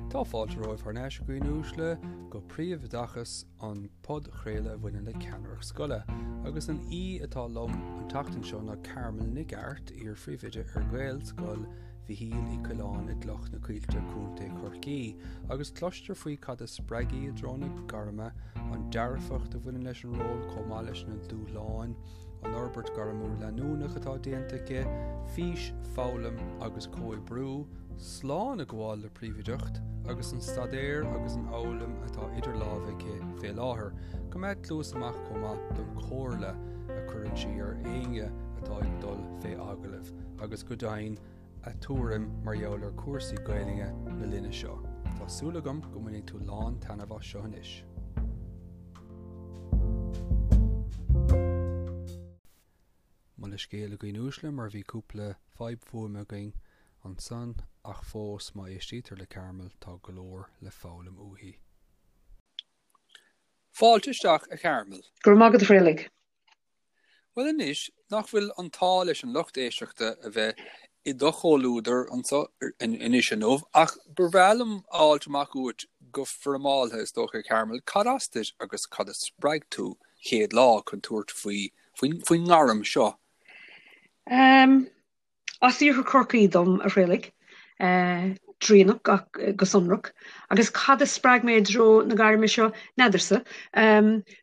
Tá fáilte romhaibh thar n-ais a dhaoine uaisle go Príomhoideachas an podchraoladh a bhaineann le ceannaireacht scoile agus an aoi atá liom an tseachtain seo ná Carmel Nic Airt, iar-phríomhoide ar Ghaelscoil Mhichíl Uí Choileáin i gCloich na Coillte, Contae Chorcaí, agus cloistear faoi cad a spreag í i dtreo na gairme, an dearfacht a bhaineann leis an ról chomh maith leis na dúshláin, an fhorbairt ghairmiúil leanúnach atá déanta aici, fís, foghlaim agus comhoibriú, slán a ghabháil le príomhoideacht, agus an staidéar agus an fhoghlaim atá idir lámha aici fé láthair. Coimeád cluas amach chomh maith don chomhairle a chuireann sí ar éinne atá ag dul fé agallamh, agus go deimhin a tuairim mar gheall ar chúrsaí Gaelainne na linne seo. Tá súil agam go mbainfidh tú lán taitneamh as seo anois. Mo leithscéal a dhaoine uaisle mar bhí cúpla fadhb fuaime againn ansan ach fós má éistítear le Carmel tá go leor le foghlaim uaithi. Fáilte isteach a Charmel. Go raibh maith agat a Thraolaigh. Bhuel anois, nach bhfuil an t-ádh leis an lucht éisteachta a bheith i do chomhluadar anso anois inniu, ach ba bhreá liom a fháilt amach uait go foirmeáltha is dócha, Carmel, cad as duit agus cad a spreag tú chéad lá chun tabhairt faoi faoin ngairm seo? As iarthar Chorcaí dom, a Thraolaigh, Draighneach go sonrach. Agus cad a spreag mé i dtreo na gairme seo? N'fheadarsa.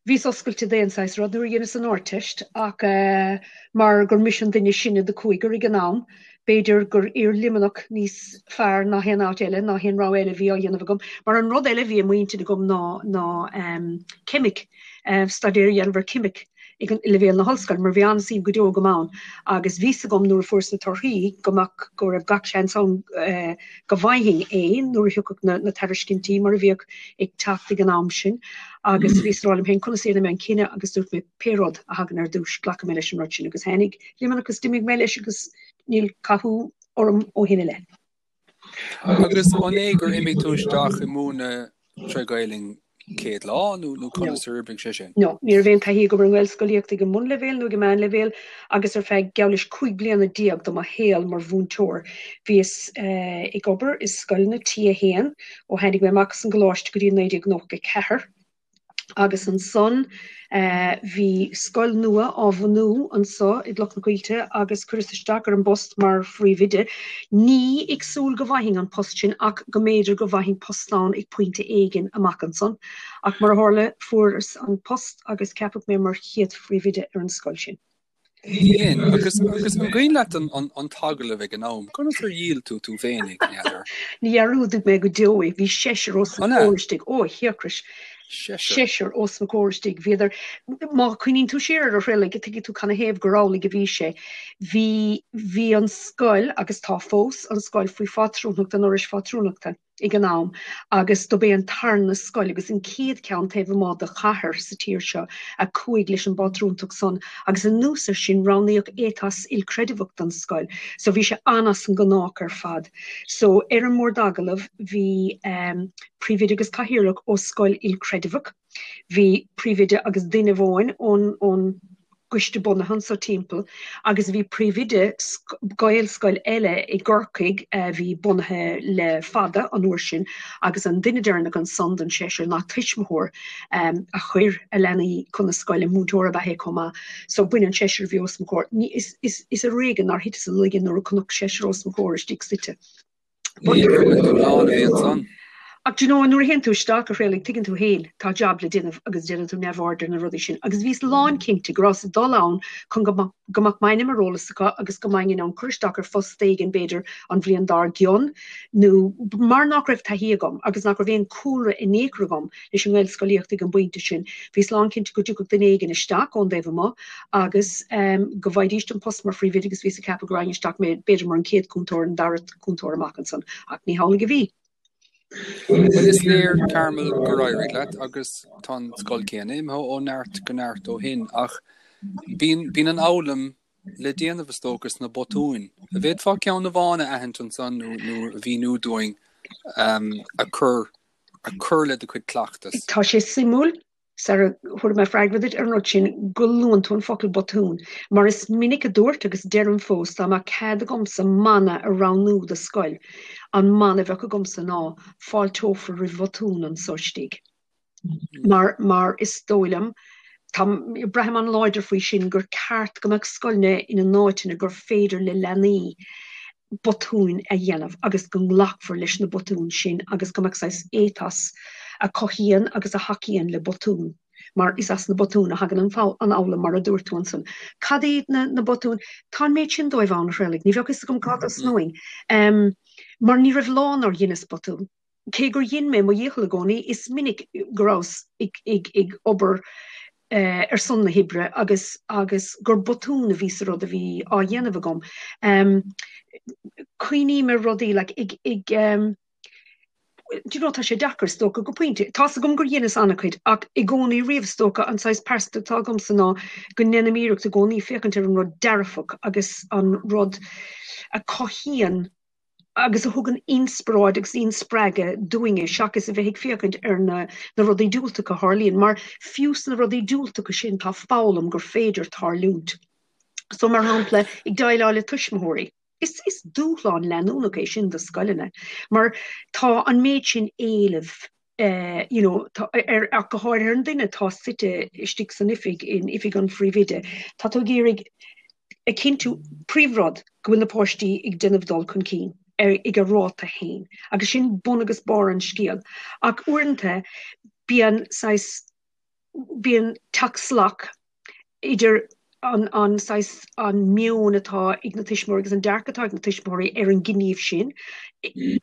Bhíos oscailte d'aon saghas rud nuair a dheineas an Ardteist ach mar gur mise an duine is sine de chúigear ag an am, b'fhéidir gur iar Luimneach níos fearr ná haon áit eile, ná haon rogha eile a bhí á dhéanamh agam. Mar an rud eile a bhí i m'intinn agam ná ná ceimic, staidéar a dhéanamh ar cheimic. ag leibhéal na hollscoile mar bhí an-suim go deo agam ann agus bhí's agam nuair a fuaireas na torthaí go mbeadh, go raibh gach seans ann go bhfaighinn é nuair a thiocfadh na, na tairiscintí mar a bhíodh ag teacht ag an am sin agus bhíos ag rá liom féin conas a dhéanfaidh mé an cinneadh agus dúirt mé pé rud a thagann ar dtús glacfaidh mé leis an rud sin agus tháinig Luimneach agus d'imigh mé leis agus níl cathú orm ó shin i leith. Agus an é gur imigh tú isteach i múineadh tré Ghaelainn céad lá nó nó conas ar oibrigh sé sin? No, ní raibh aon taithí agam ar an nGaelscolaíocht ag an mbunleibhéal nó ag an meánleibhéal agus ar feadh geall leis 15 bliana de mo shaol mar mhúinteoir bhíos ag obair i scoileanna T1 ó tháinig mé amach as an gcoláiste go dtí 1994. Agus ansan bhí scoil nua á bhunú anso i gCloich na Coillte agus cuireas isteach ar an bpost mar phríomhoide. Ní ag súil go bhfaighinn an post sin ach go mb'fhéidir go bhfaighinn post ann ag pointe éigin amach ansan. Ach mar a tharla fuaireas an post agus ceapadh mé mar chéad phríomhoide ar an scoil sin. Dhein, agus agus an cuimhin leat an an an t-agallamh ag an am? Conas ar dhíol tú tú féinig, n'fheadar? Ní dhearúdfaidh mé go deo é. Bhí seisear os mo chomhair istigh. Ó, a thiarcais! Seisear? Seisear os mo chomhair istigh. Bhíodar, má chuimhníonn tú siar air a Thraolaigh, tuigfidh tú canathaobh gur amhlaidh a bhí sé. Bhí, bhí an scoil, agus tá fós, an scoil faoi phátrúnacht an Fhorais Phátrúnachta. ag an am agus dob é an tarna scoil agus an chéad cheann taobh amuigh de chathair sa tír seo a chuaigh leis an bpátrúntacht san agus anuas ar sin roghnaíodh éiteas ilchreideamhach don scoil so bhí sé an-as an ngnách ar fad. So ar an mbord agallaimh bhí príomhoide agus cathaoirleach ó scoil ilchreideamhach, bhí príomhoide agus duine amháin ón ón gcoiste bunaithe anso timpeall agus bhí príomhoide Gaelscoil eile i gCorcaigh a bhí bunaithe le fada an uair sin agus an duine deireanach ansan den seisear ná tuismitheoir a chuir a leanaí chun na scoile, múinteoir ab ea é chomh maith. So b'in an seisear a bhí os mo chomhair. Is ar éigean nár thiteas i laige nuair a chonac seisear os mo chomhair istigh suite. Ach do you know, nuair a théann tú isteach, a Thraolaigh, tuigeann tú féin, tá jab le déanamh agus déanann tú neamhaird ar na rudaí sin. Agus bhíos lánchinnte go rabhas ag dul ann chun go go mbeadh m'ainm ar eolas acu agus go mbeinn in ann cur isteach ar phost éigin, b'fhéidir, an bhliain dár gcionn, nó mar nach raibh taithí agam agus nach raibh aon chúlra in aon chor agam leis an nGaelscolaíocht ag an bpointe sin, bhíos lánchinnte go dtiocfadh duine éigin isteach ón dtaobh amuigh agus go bhfaighidís an post mar phríomhoide agus bhíos ag ceapadh go raghainn isteach mé b'fhéidir mar an chéad chúntóir, an dara cúntóir amach ansan ach ní hamhlaidh a bhí. Bhuel is léir Carmel gur éirigh leat agus tá an scoil céanna imithe ó neart go neart ó shin ach bíonn bíonn an fhoghlaim le déanamh is dócha sna botúin. An bhféadfá ceann amháin a aithint ansan nó nó a mhíniú dúinn a chur a chur le do chuid cleachtas? Tá sé suimiúil. Sara thabharfaidh mé freagra duit ar an rud sin, go luann tú an focal botún, mar is minic a dúirt agus deirim fós, dá mbeadh cead agamsa mana a roghnú do scoil, an mana a bheadh agamsa ná, fáilteofar roimh bhotúin anso istigh. Mar, mar is dóigh liom, tá, braithim an-láidir faoi sin, gur ceart go mbeadh scoileanna ina n-áiteanna gur féidir le leanaí botúin a dhéanamh agus go nglacfar leis na botúin sin agus go mbeadh saghas ethos a chothaíonn agus a thacaíonn le botúin mar is as na botúin a thagann an fhoghlaim mar a dúirt tú ansan. Cad iad na na botúin? Tá an méid sin dóibh ann, a Thraolaigh, ní bheadh fhios agam cá dtosnóinn. Mar ní raibh lá nár dheineas botún. Cé gur dhein mé mo dhícheall i gcónaí, is minic go rabhas ag obair ar son na hoibre agus agus gur botún a bhí sa rud a bhí á dhéanamh agam. Cuimhním ar rudaí like ag ag do you know tá sé deacair is dócha go pointe. Tá's agam gur dheineas an-chuid ach i gcónaí riamh is dócha an saghas pearsantacht atá agamsa ná go ndéanaim iarracht i gcónaí féachaint ar an rud dearfach agus an rud a chothaíonn agus a thugann inspioráid agus inspreagadh dúinne seachas a bheith ag féachaint ar na na rudaí diúltacha a tharlaíonn, mar fiú sna rudaí diúltacha sin tá foghlaim gur féidir tarlúint. So mar shampla, ag déileáil le tuismitheoirí, is is dúshlán leanúnach é sin do scoileanna, mar tá an méid sin éilimh eh, you know, tá, ar, ach go háirithe ar an duine atá suite istigh san oifig, in oifig an phríomhoide, tá tú ag iarraidh a chinntiú, príomhrud, go bhfuil na páistí ag déanamh dul chun cinn ar, ag a ráta féin. Agus sin bun agus barr an scéil. Ach uaireanta bíonn saghas, bíonn teacht salach idir an, an saghas, an meon atá ag na tuismitheoirí agus an dearcadh atá ag na tuismitheoirí ar an ngníomh sin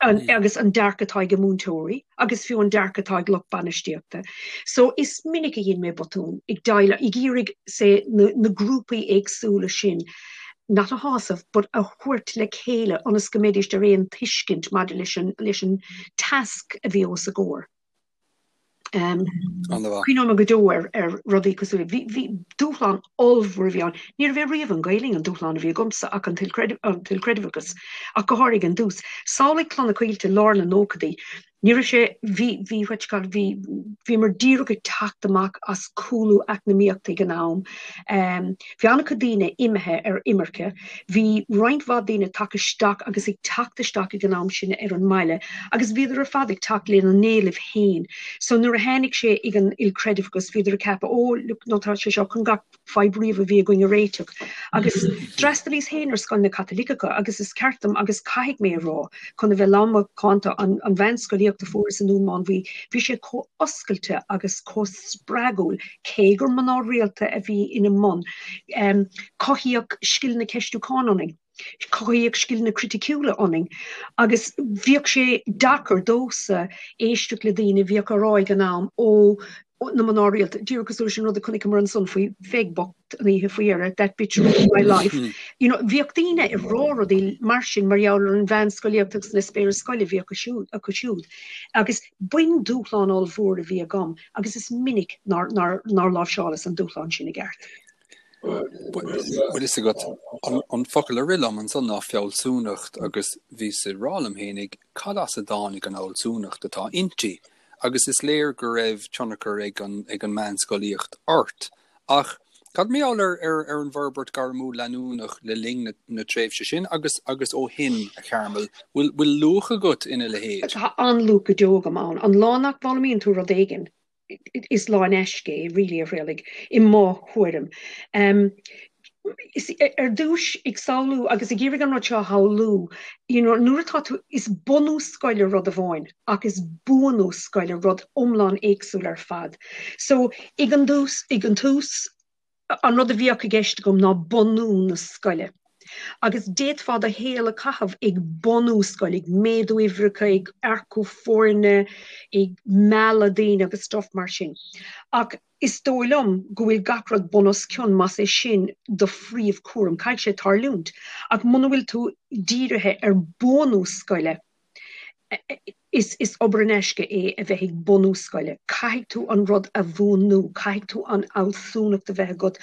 an, agus an dearcadh atá ag a múinteoirí agus fiú an dearcadh atá ag lucht bainistíochta. So is minic a dhein mé botún ag déileáil, ag iarraidh say na, na grúpaí éagsúla sin not a shásamh but a thabhairt le chéile ionas go mbeidís ar aon tuiscint maidir leis an, leis an tasc a bhí os a gcomhair. Cuimhneoidh mé go deo ar ar rudaí cosúil le, bhí bhí dúshlán ollmhór a bhí ann. Ní raibh riamh an Ghaelainn an dúshlán a bhí agamsa ach an t-ilchreidmheachas, ach go háirithe ag an dtús. Samhlaigh Cloich na Coillte lár na nóchaidí. Ní raibh sé, bhí, bhí, what you call it, bhí, bhíomar díreach ag teacht amach as cúlú eacnamaíochta ag an am. Bhí an-chuid daoine imithe ar imirce. Bhí roinnt mhaith daoine tagtha isteach agus ag teacht isteach ag an am sin ar an mbaile agus bhíodar ar fad ag teacht lena n-éilimh féin. So nuair a tháinig sé ag an ilchreidmheachas bhíodar ag ceapadh oh look no tá sé seo chun gach fadhb riamh a bhí againn a réiteach. Agus d'fhreastalaíos féin ar scoileanna Caitliceacha agus is ceart dom agus caithfidh mé a rá chun a bheith lán macánta an an mheánscolaíocht a fuaireas i nDún Mánmhaí bhí sé chomh oscailte agus chomh spreagúil cé gur mná rialta a bhí ina mbun. Cothaíodh scileanna ceistiúcháin ionainn, cothaíodh scileanna criticiúla ionainn agus bhíodh sé deacair domhsa éisteacht le daoine a bhíodh á rá ag an am ó na mná rialta, díreach cosúil leis an rud a chonaiceamar ansan faoi Pheig bocht an oíche faoi dheireadh, that bitch ruined my life. You know, bhíodh daoine ag rá rudaí mar sin mar gheall ar an mheánscolaíocht agus an eispéireas scoile a bhí acu siúd. Agus b'in dúshlán ollmhór a bhí agam agus is minic nár láimhseálas an dúshlán sin i gceart. Bhfuil fhios agat, an focal a rith liom ansan ná fealsúnacht agus bhíos ag rá liom fhéinig cad as a dtáinig an fhealsúnacht atá inti agus is léir go raibh tionchar ag an ag an meánscolaíocht ort. Ach cad mar gheall ar ar ar an bhforbairt gairmiúil leanúnach le linn na na tréimhse sin agus agus ó shin, a Charmel, bhfuil bhfuil luach agat ina leithéid? Tá an-luach go deo agam ann. An lá nach bhfoghlaimíonn tú rud éigin, is lá in aisce é, really, a Thraolaigh, i mo thuairim. Is ar dtús ag samhlú agus ag iarraidh an rud seo a shamhlú, you know, nuair atá tú, is bunú scoile rud amháin ach is buanú scoile rud iomlán éagsúil ar fad. So, ag an dtús, ag an tús, an rud a bhíodh i gceist agam ná bunú na scoile. Agus d'fhéadfá do shaol a chaitheamh ag bunú scoile, ag méadú uimhreacha, ag earcú foirne, ag mealladh daoine agus stuff mar sin. Ach is dóigh liom go bhfuil gach rud bun os cionn más é sin do phríomhchúram. Caithfidh sé tarlúint. Ach muna bhfuil tú dírithe ar buanú scoile. Is is obair in aisce é a bheith ag bunú scoile. Caithfidh tú an rud a bhunú, caithfidh tú an fhealsúnacht a bheith agat,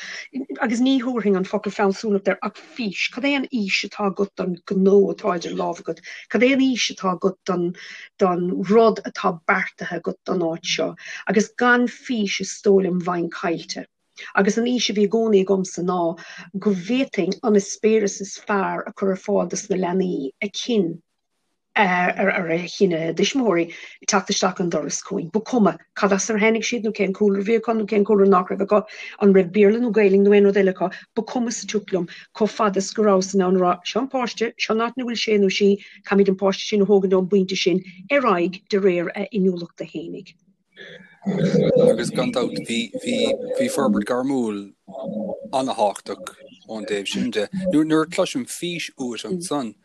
agus ní thabharfainn an focal fealsúnacht air ach fís. Cad é an fhís atá agat don ghnó atá idir lámha agat? Cad é an fhís atá agat don don rud atá beartaithe agat don áit seo? Agus gan fís is dóigh liom bheinn caillte. Agus an fhís a bhí i gcónaí agamsa ná go bhféadfainn an eispéireas is fearr a chur ar fáil dos na leanaí, a chinn ar a chinn a dtuismitheoirí teacht isteach an doras chugainn. Ba chuma cad as ar tháinig siad nó cén cúlra a bhí acu nó cén cúlra nach raibh acu, an raibh Béarla nó Gaelainn nó aon rud eile acu, ba chuma sa tsioc liom chomh fada is go rabhas in ann a rá, seo an páiste, seo an áit ina bhfuil sé nó sí, caithfimid an páiste sin a thógaint ón bpointe sin ar aghaidh de réir a inniúlachta fhéinig. Agus gan dabht bhí, bhí, bhí forbairt gairmiúil an-thábhachtach ón dtaobh sin de. Nuair, nuair a chloisim fís uait ansan,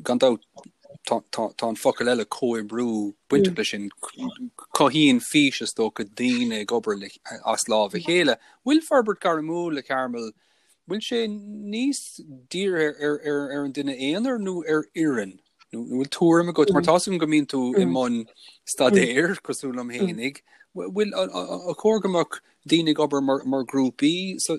Gan dabht, tá an focal eile comhoibriú bainteach leis sin. Cothaíonn fís, is dócha, daoine ag obair as lámh a chéile. Bhfuil forbairt gairmiúil, a Chearmail, bhfuil sé níos dírithe ar an duine aonair nó ar fhoireann? Nó bhfuil tuairim agat, mar tá a fhios agam go mbíonn tú i mbun staidéir, cosúil liom fhéinig, bhfuil, ar chóir go mbeadh daoine ag obair mar ghrúpaí sa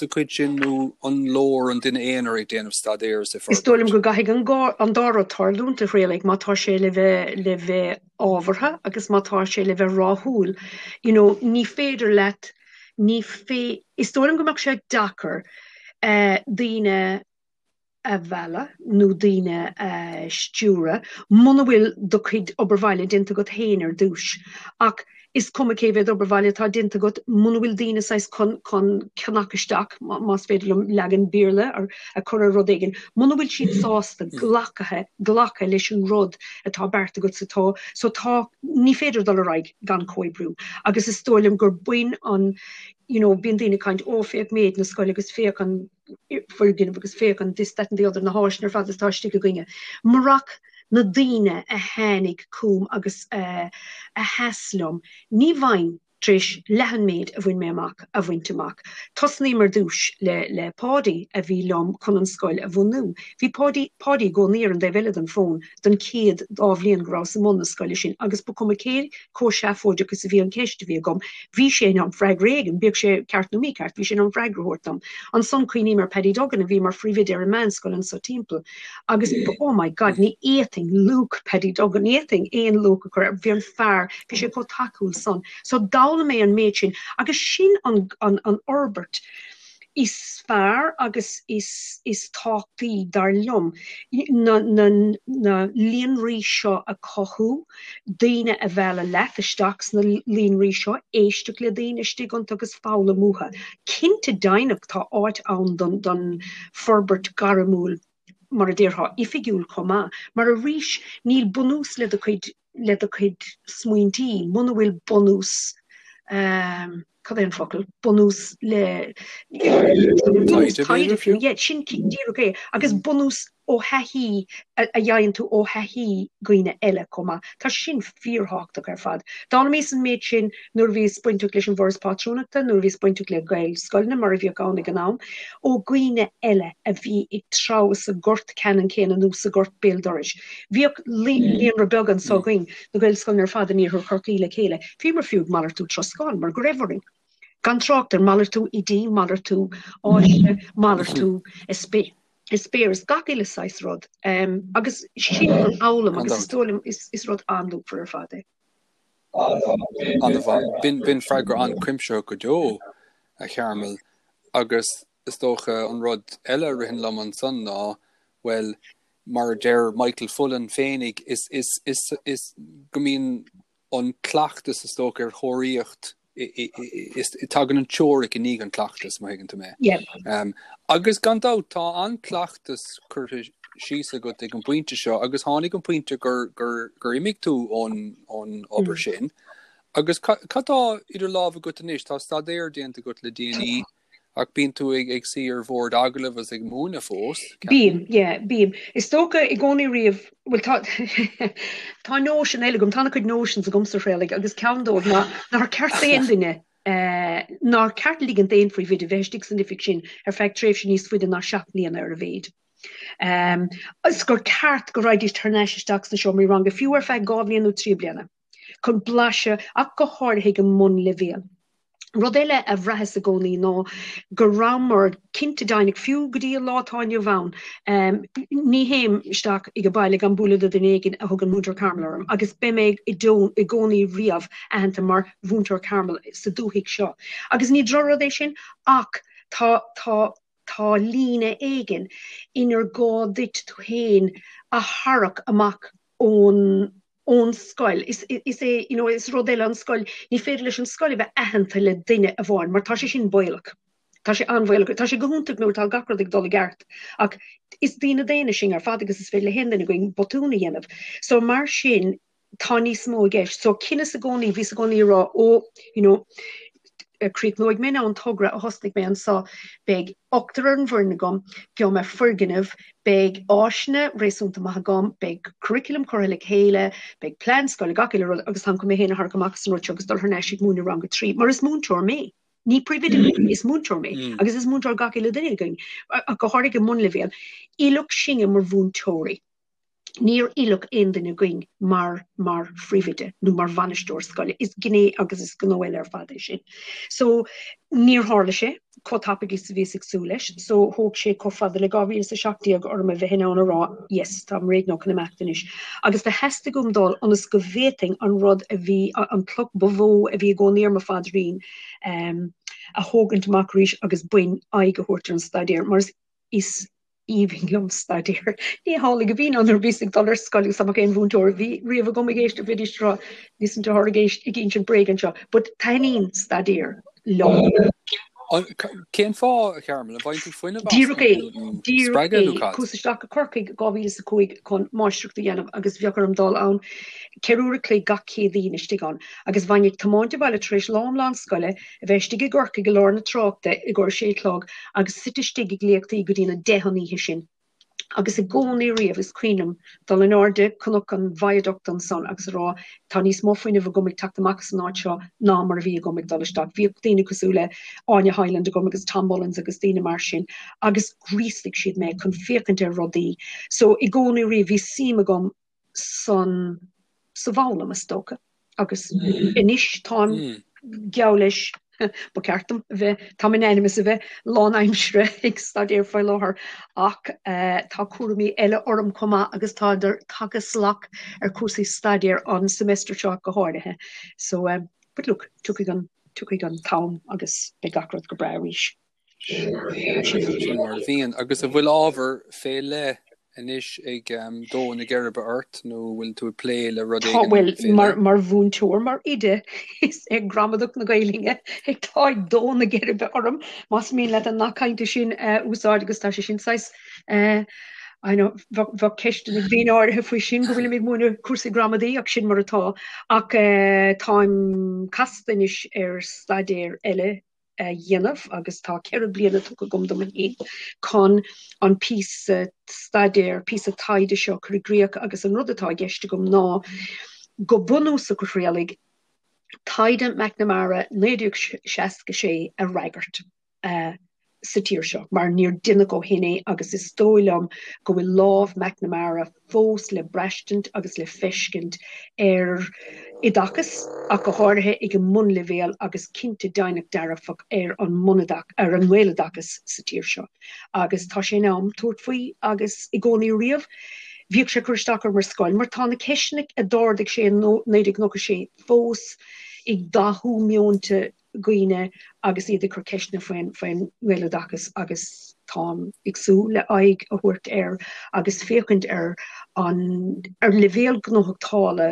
chuid sin nó an leor an duine aonair ag déanamh staidéir is ag forbairt? Is dóigh liom go gcaithfidh an dá rud tarlúint, a Thraolaigh, má tá sé le bheith le bheith ábhartha agus má tá sé le bheith ráthúil. You know, ní féidir leat, ní fé, is dóigh liom go mbeadh sé deacair daoine a mhealladh nó daoine a stiúradh muna bhfuil do chuid obair bhaile déanta agat féin ar dtús. Ach is cuma cé mhéad obair bhaile atá déanta agat, muna bhfuil daoine saghas chun chun cnoc isteach, más féidir liom leagan Béarla a chur ar rud éigin, muna bhfuil siad sásta glactha glacadh leis an rud atá beartaithe agat so tá so tá ní féidir dul ar aghaidh gan comhoibriú. Agus is dóigh liom gur bain an you know bíonn daoine ag caint ó féach méid na scoile agus féach an foirgneamh agus féach an this, that and the other, na háiseanna ar fad atá istigh againne. Murach na daoine a tháinig chugam agus a sheas liom, ní bheinn tar éis leath an méid a bhain mé amach a bhaint amach. Tosnaím ar dtús le le Páidí a bhí liom chun an scoil a bhunú. Bhí Páidí Páidí i gcónaí ar an dtaobh eile den fón don chéad dá bhliain go rabhas i mbun na scoile sin agus ba chuma cé chomh seafóideach is a bhí an cheist a bhí agam, bhí sé in ann freagra éigin, bíodh sé ceart nó mícheart, bhí sé in ann freagra a thabhairt dom. Ansan cuimhním ar Paddy Duggan a bhí mar phríomhoide ar an meánscoil anso timpeall agus oh my God, ní fhéadfainn luach Paddy Duggan, ní fhéadfainn aon luach a chur air, bhí an fear, bhí sé chomh tacúil san. So d'fhoghlaim mé an méid sin agus sin an, an, an fhorbairt is fearr agus is, is tábhachtaí, dar liom, na, na, na líonraí seo a chothú. daoine a mhealladh leat isteach sna líonraí seo, éisteacht le daoine istigh iontu agus foghlaim uathu. Cinnte deimhneach tá áit ann don don forbairt gairmiúil mar a déarfá oifigiúil chomh maith, mar arís níl bunús le do chuid le do chuid smaointí muna bhfuil bunús ehm cad é an focal, bunús le bunús taighde fiú, yeah, sin díreach é, agus bunús ó thaithí a fhaigheann tú ó thaithí dhaoine eile chomh maith. Tá sin fíorthábhachtach ar fad. D'fhoghlaimíos an méid sin nuair a bhíos bainteach leis an bhForas Pátrúnachta, nuair a bhíos bainteach le Gaelscoileanna mar a bhíodh ann ag an am, ó dhaoine eile a bhí ag treabhadh sa ghort ceannann céanna nó sa ghort béal dorais. Bhíodh líonra beag anso againn, na Gaelscoileanna ar fad in iarthar Chorcaí le chéile. Bhíomar fiú ag malartú troscán mar go raibh orainn. Gan trácht ar malartú oidí, malartú áise, malartú eispéireas, gach uile saghas rud. Agus sin an fhoghlaim agus is dóigh liom is rud an-luachmhar ar fad é. An-mhaith. B'in freagra an-chuimsitheach go deo, a Chearmail. Agus is dócha an rud eile a ritheann liom ansan ná, bhuel, mar a deir Michael Fullan féinig, is, is, is, is go mbíonn an cleachtas is dócha ar thóraíocht, is, tagann an teoiric i ndiaidh an cleachtas, má thuigeann tú mé. Yeah. Um, agus gan dabht tá an cleachtas curtha síos agat ag an bpointe seo agus tháinig an pointe gur, gur, gur imigh tú ón, ón obair mm. sin. Agus cad tá idir lámha agat anois? Tá staidéar déanta agat le déanaí. Ach bíonn tú ag ag suí ar bhord agallaimh agus ag múineadh fós, ceapaim. Bím, yeah, bím. Is dócha i gcónaí riamh, bhuel tá tá notion eile agam, tá ana-chuid notions agamsa a Thraolaigh agus ceann dóibh ná nár ceart d'aon duine, nár ceart ligint d'aon phríomhoide bheith istigh san oifig sin ar feadh tréimhse níos faide ná 7 mbliana ar a mhéid. Is gur ceart go raghaidís thar n-ais isteach sna seomraí ranga, fiú ar feadh 2 bhliain nó 3 bliana, chun blaiseadh, ach go háirithe ag an mbunleibhéal. Rud eile a bhraitheas i gcónaí ná go rabhamar cinnte deimhneach, fiú go dtí an lá atá inniu ann, ní théim isteach ag an baile gan bualadh le duine éigin a thugann Múinteoir Carmel orm agus beidh mé i gcónaí riamh aitheanta mar Mhúinteoir Carmel sa dúthaigh seo. Agus ní drochrud é sin ach tá, tá, tá líne éigin inar gá duit tú féin a tharrac amach ón ón scoil. Is is é you know is rud eile an scoil, ní féidir leis an scoil a bheith aitheanta le duine amháin mar tá sé sin baolach. Tá sé an-bhaolach. Tá sé go hiontach nuair atá gach rud ag dul i gceart ach is daoine daonna sinn ar fad agus is féidir le haon duine againn botún a dhéanamh. So mar sin tá níos mó i gceist. So chinneas i gcónaí, bhíos i gcónaí ag rá ó you know críochnóidh mé an togra a thosnaigh mé anso, beidh ochtar ar an bhfoireann agam, gheobhaidh mé foirgneamh, beidh áiseanna réasúnta maith agam, beidh curriculum curtha le chéile, beidh plean scoile, gach uile rud agus táim chun mé féin a tharrac amach as an rud seo agus dul thar n-ais ag múineadh rang a 3, mar is múinteoir mé. Ní príomhoide mé, is múinteoir mé agus is múinteoir gach uile duine againn, ach go háirithe ag an mbunleibhéal. Oileadh sinne mar mhúinteoirí. Níor oileadh aon duine againn mar mar phríomhoide nó mar bhainisteoir scoile. Is gné agus is gnó eile ar fad é sin. So, níor tharla sé chomh tapaidh is a bhíos ag súil leis. So, thóg sé chomh fada le 2017 orm a bheith in ann a rá, yes, táim réidh now chun imeacht anois. Agus do theastaigh uaim dul ionas go bhféadfainn an rud a bhí, an cloch ba mhó a bhí i gcónaí ar mo phaidrín, a thógaint amach arís agus b'in aghaidh a thabhairt ar an staidéar. Mar is aoibhinn liom staidéar. Ní hamhlaidh a bhí nuair a bhíos ag dul ar scoil agus dá mbeadh aon mhúinteoir a bhí riamh agam ag éisteacht bheidís ag rá listen to her ag éist ag insint bréag anseo. But taitníonn staidéar liom. Cén fáth, a Charmel, an bhfaigheann tú fuinneamh as Díreach é, díreach spreagadh nó é. cad? Chuas isteach go Corcaigh 2005 chun máistreacht a dhéanamh agus bheadh orm dul ann 4 uair a chloig gach Céadaoin istigh ann agus bheinn ag tiomáint abhaile tar éis lá iomlán scoile a bheith istigh i gCorcaigh i lár na tráchta i gcomhair a sé a chlog agus suite istigh ag léachtaí go dtí na deich an oíche sin. Agus i gcónaí riamh is cuimhin liom dul in airde cnoc an Viaduct ansan agus a rá tá níos mó fuinnimh agam ag teacht amach as an áit seo ná mar a bhí agam ag dul isteach. Bhíodh daoine cosúil le Áine Hyland agam agus Tom Mullins agus daoine mar sin agus ghríosaigh siad mé chun féachaint ar rudaí. So i gcónaí riamh bhí suim agam san sa bhfoghlaim, is dócha. Agus anois táim geall leis, ba cheart dom a bheith, táim in ainm is a bheith lánaimseartha ag staidéar faoi láthair ach tá cúraimí eile orm chomh maith agus tá tagtha salach ar chúrsaí staidéir an semester seo go háirithe. So, but look, tiocfaidh an, tiocfaidh an t-am agus beidh gach rud go breá arís. Sin mar a bhíonn. Agus an bhfuil ábhar fé leith anois ag dó na geirbe ort nó bhfuil tú ag plé le rud éigin fé leith? Bhuel, mar mhúinteoir, mar oide, is é gramadach na Gaeilge atá ag dó na geirbe orm, más mian leat an nath cainte sin a úsáid agus tá sé sin saghas, I know, bheadh ceisteanna ag daoine áirithe faoi sin go bhfuilim ag múineadh cúrsaí gramadaí ach sin mar atá. Ach táim casta anois ar staidéar eile a dhéanamh agus tá 4 bliana tugtha agam dom féin chun an píosa staidéir, píosa taighde seo a chur i gcrích agus an rud atá i gceist agam ná go bunúsach a Thraolaigh, taighde McNamara 1966 a fhreagairt sa tír seo mar níor deineadh ó shin é agus is dóigh liom go bhfuil lámh McNamara fós le braistint agus le feiscint ar oideachas, ach go háirithe ag an mbunleibhéal agus cinnte deimhneach dearfach ar an mbunoideachas, ar an nGaeloideachas sa tír seo. Agus tá sé in am tabhairt faoi agus i gcónaí riamh bhíodh sé ag cur isteach orm ar scoil mar tá na ceisteanna a d'ardaigh sé in 1996 fós ag dathú meonta dhaoine agus iad ag cur ceisteanna faoin faoin nGaeloideachas agus táim ag súil le aghaidh a thabhairt air agus féachaint ar an ar leibhéal gnóthachtála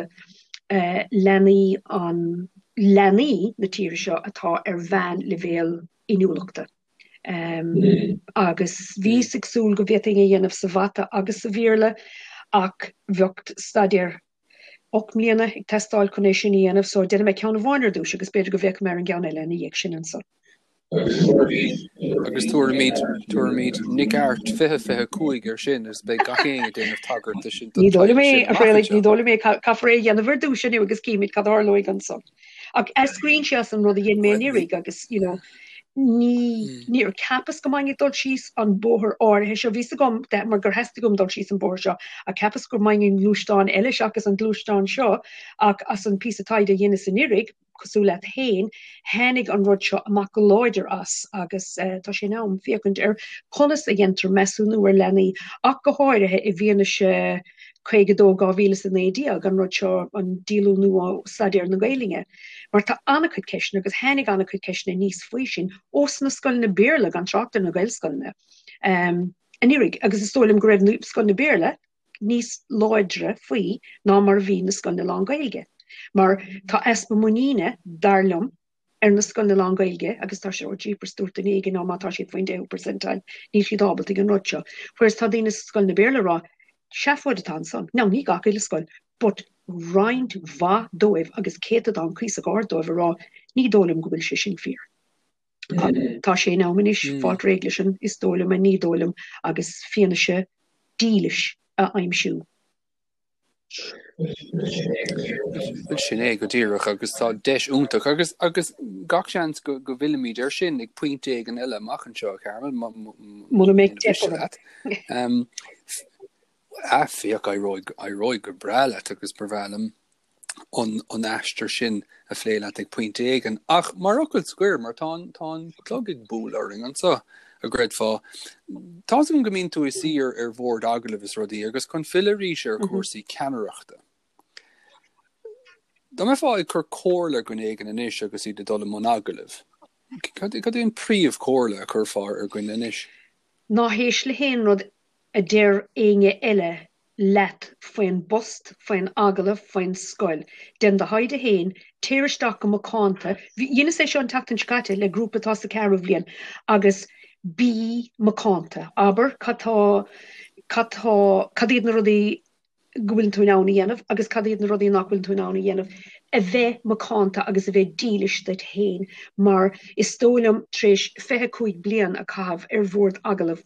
leanaí an leanaí na tíre seo atá ar mheánleibhéal inniúlachta. Agus bhíos ag súil go bhféadfainn a dhéanamh sa mhata agus sa Bhéarla ach bheadh staidéar 8 mbliana ag teastáil chun é sin a dhéanamh so déanfaidh mé ceann amháin ar dtús agus b'fhéidir go bhféachfaidh mé ar an gceann eile ina dhiaidh sin ansan. Agus tabharfaimid, tabharfaimid Nic Airt 2025 air sin agus beidh gach éinne ag déanamh tagairt do sin, don Ní dóigh liom é, a Thraolaigh, ní dóigh liom é, caithfear é a dhéanamh ar dtús inniu agus cífimid cad a tharlóidh ansan. Ach eascraíonn sé as an rud a dhein mé anuraidh agus, you know, Ní, níor cheapas go mbeinn ag dul síos an bóthar áirithe seo, bhí 's agam mar gur theastaigh uaim dul síos an bóthar seo, ach cheapas go mbeinn i ngluaisteán eile seachas an gluaisteán seo, ach as an píosa taighde a dheineas anuraidh, cosúil leat féin, tháinig an rud seo amach go láidir as agus tá sé in am féachaint ar conas a dhéantar measúnú ar leanaí, ach go háirithe i bhfianaise 52 2019, an rud seo, an díolúnú ó staidéar na Gaelainne. Mar tá an-chuid ceisteanna, agus tháinig an-chuid ceisteanna aníos faoi sin, ós na scoileanna Béarla, gan trácht ar na Gaelscoileanna, anuraidh. Agus is dóigh liom go raibh na scoileanna Béarla níos láidre faoi ná mar a bhí na scoileanna lán-Ghaeilge. Mar tá easpa muiníne, dar liom, ar na scoileanna lán-Ghaeilge agus tá sé, oh jeepers, dúirt duine éigin, á má tá siad faoin deichiú percentile, níl siad ábalta ag an rud seo. Whereas tá daoine sna scoileanna Béarla ag rá, seafóid atá ansan. Now, ní gach uile scoil, but roinnt mhaith dóibh agus céatadán cuíosach ard dóibh ag rá, ní dóigh liom go bhfuil sé sin fíor. Tá sé in am anois fáilt réidh leis an is dóigh liom, an ní dóigh liom agus fianaise dílis a aimsiú. Bhuel sin é go díreach agus tá deis iontach agus agus gach seans go go bhfillfimid air sin ag pointe éigin eile amach anseo, a Charmel, Muna mbeidh deis leat. Ah, féach, éireoidh éireoidh go breá leat agus ba bhreá liom an an aistear sin a phlé leat ag pointe éigin. Ach mar fhocal scoir, mar tá an tá an clog ag bualadh orainn anseo, a gcreidfeá. Tá's agam go mbíonn tú i do suí ar ar bhord agallaimh is rudaí agus chun filleadh arís ar chúrsaí ceannaireachta. Dá mbeifeá ag cur comhairle ar dhuine éigin anois agus iad ag dul i mbun agallaimh, cad cad é an príomhchomhairle a chuirfeá ar dhuine anois? Ná héist le haon rud a deir éinne eile leat faoin bpost, faoin agallamh, faoin scoil. Déan do thaighde féin, téir isteach go macánta, dheineas é seo an tseachtain seo caite le grúpa atá sa ceathrú bhliain, agus bí macánta. Abair cad tá, cad tá, cad iad na rudaí go bhfuileann tú in ann a dhéanamh agus cad iad na rudaí nach bhfuileann tú in ann a dhéanamh. A bheith macánta agus a bheith dílis duit féin mar is dóigh liom tar éis 25 bliain a chaitheamh ar bhord agallaimh,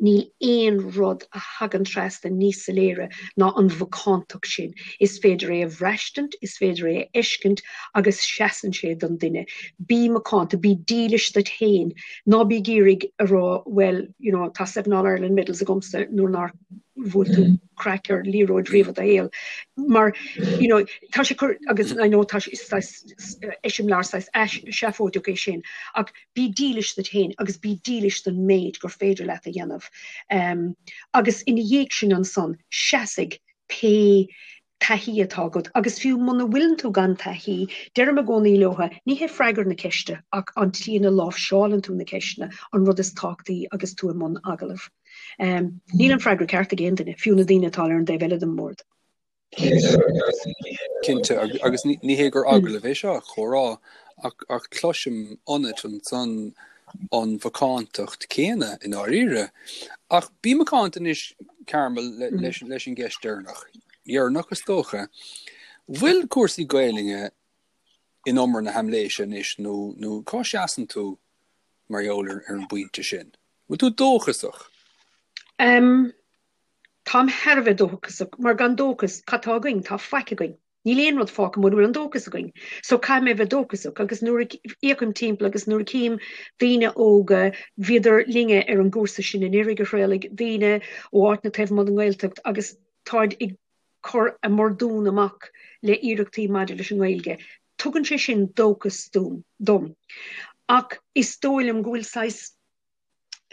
Níl aon rud a thagann trasna níos soiléire ná an mhacántacht sin. Is féidir é a bhraistint, is féidir é a fheiscint agus seasann sé don duine. Bí macánta, bí dílis duit féin. Ná bí ag iarraidh a rá bhuel, you know, tá seven All Ireland medals agamsa nuair nár bhuail tú craic ar liathróid riamh i do shaol. Mar, you know, tá sé cur, agus I know tá sé, saghas eiseamláir saghas seafóideach é sin, ach Bí dílis duit féin agus bí dílis don méid gur féidir leat a dhéanamh. Agus ina dhiaidh sin ansan, seasfaidh pé taithí atá agat. Agus fiú muna bhfuileann tú gan taithí, deirim i gcónaí leotha, ní hé freagra na ceiste ach an tslí ina láimhseálann tú na ceisteanna an rud is tábhachtaí agus tú i mbun agallaimh. Níl an freagra ceart ag aon duine, fiú na daoine atá ar an dtaobh eile den mbord. Cinnte, agus ní hé gur agallamh é seo, comhrá, ach cloisim ionat ansan an mhacántacht céanna i ndáiríre. Ach bí macánta anois, Carmel, leis an gceist deireanach, dheireanach is dócha. Bhfuil cúrsaí Gaelainne in umar na haimléise anois nó cá seasann tú mar gheall ar an bpointe sin? Bhfuil tú dóchasach? Táim thar a bheith dóchasach, mar gan dóchas, cad tá againn? Tá faic againn. Níl aon rud fágtha mura bhfuil an dóchas againn. So caithfidh mé a bheith dóchasach. Agus nuair a fhéachaim timpeall agus nuair a chím daoine óga, bhíodar linne ar an gcúrsa sin anuraidh, a Thraolaigh, daoine ó áiteanna taobh amuigh den nGaeltacht agus táid ag cur a mbordún amach le iarrachtaí maidir leis an nGaeilge. Tugann sé sin dóchas dom. Ach is dóigh liom go bhfuil saghas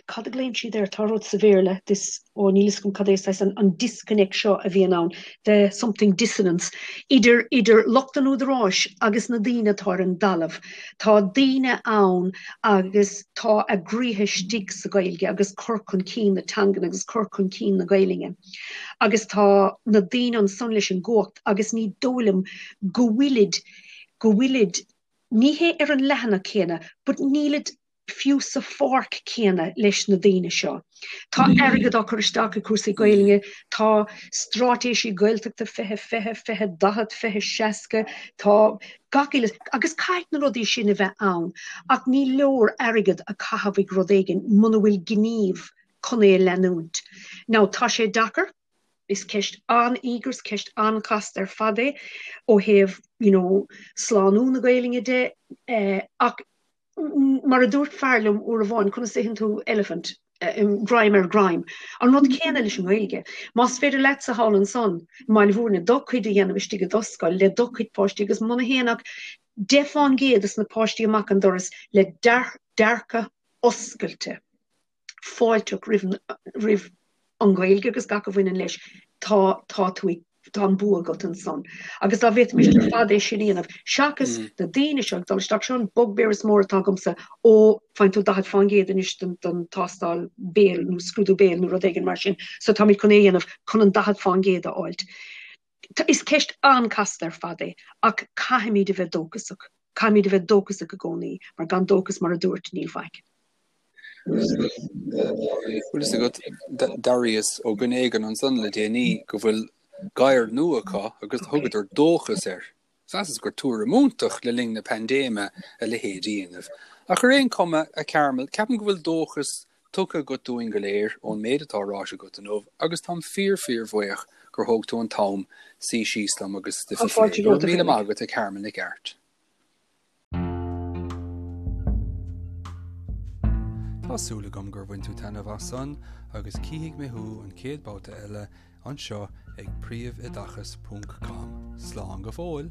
cad a ghlaonn siad air, tá rud sa Bhéarla, this, ó níl fhios agam cad é, saghas an, an disconnect seo a bhíonn ann, the something dissonance, idir, idir lucht an údaráis agus na daoine atá ar an dtalamh. Tá daoine ann agus tá a gcroíthe istigh sa Ghaeilge agus cur chun cinn na teangan agus cur chun cinn na Gaelainne. Agus tá na daoine ansan leis an gcumhacht agus ní dóigh liom go bhfuilid, go bhfuilid, ní hé ar an leathanach céanna, but nílid fiú sa pháirc céanna leis na daoine seo. Tá airgead á cur isteach i cúrsaí Gaelainne, tá straitéisí Gaeltachta 2020, 2040, 2060, tá gach uile, agus caithfidh na rudaí sin a bheith ann, ach ní leor airgead a chaitheamh ag rud éigin muna bhfuil gníomh chun é a leanúint. Now, tá sé deacair, is ceist an-íogair, is ceist an-chasta ar fad é ó thaobh, you know, slánú na Gaelainne de, ach. Mar a dúirt fear liom uair amháin, conas a itheann tú elephant, greim ar ghreim. An rud céanna leis an nGaeilge. Más féidir leatsa thall ansan i mBaile Bhúirne do chuid a dhéanamh istigh i do scoil le do chuid páistí agus muna théann ach 10 fán gcéad des na páistí amach an doras le dearcadh oscailte, fáilteach roimh an Ghaeilge agus gach a bhaineann leis, tá, tá tú ag, tá an bua agat ansan. Agus dá bhféadfaimis ar fad é sin a dhéanamh, seachas na daoine seo ag dul isteach, seo an bugbear is mór atá agamsa, ó, faigheann tú 40% anois don, don tástáil béil nó scrúdú béil nó rud éigin mar sin, so táimid chun é a dhéanamh chun an 40% a fháilt. Is ceist an-chasta ar fad é, ach caithfimid a bheith dóchasach. Caithfimid a bheith dóchasach i gcónaí, mar gan dóchas, mar a dúirt, níl faic. Bhfuil fhios agat, d'airíos ó dhuine éigin ansan le déanaí go bhfuil gadhar nua acu agus thugadar dóchas air. Mheasas gur tuairim iontach le linn na paindéime a leithéid a dhéanamh. Ach ar aon chuma, a Carmel, ceapaim go bhfuil dóchas tugtha agat dúinn go léir ón méid atá ráite agat inniu agus táim fíor fíor bhuíoch gur thóg tú an t-am suí síos liom agus stuif a phlé. Go raibh míle maith agat, a Carmel Nic Airt. Tá súil agam gur bhain tú taitneamh as san agus cífidh mé thú an chéad babhta eile anseo ag príomhoideachas ponc com. Slán go fóill!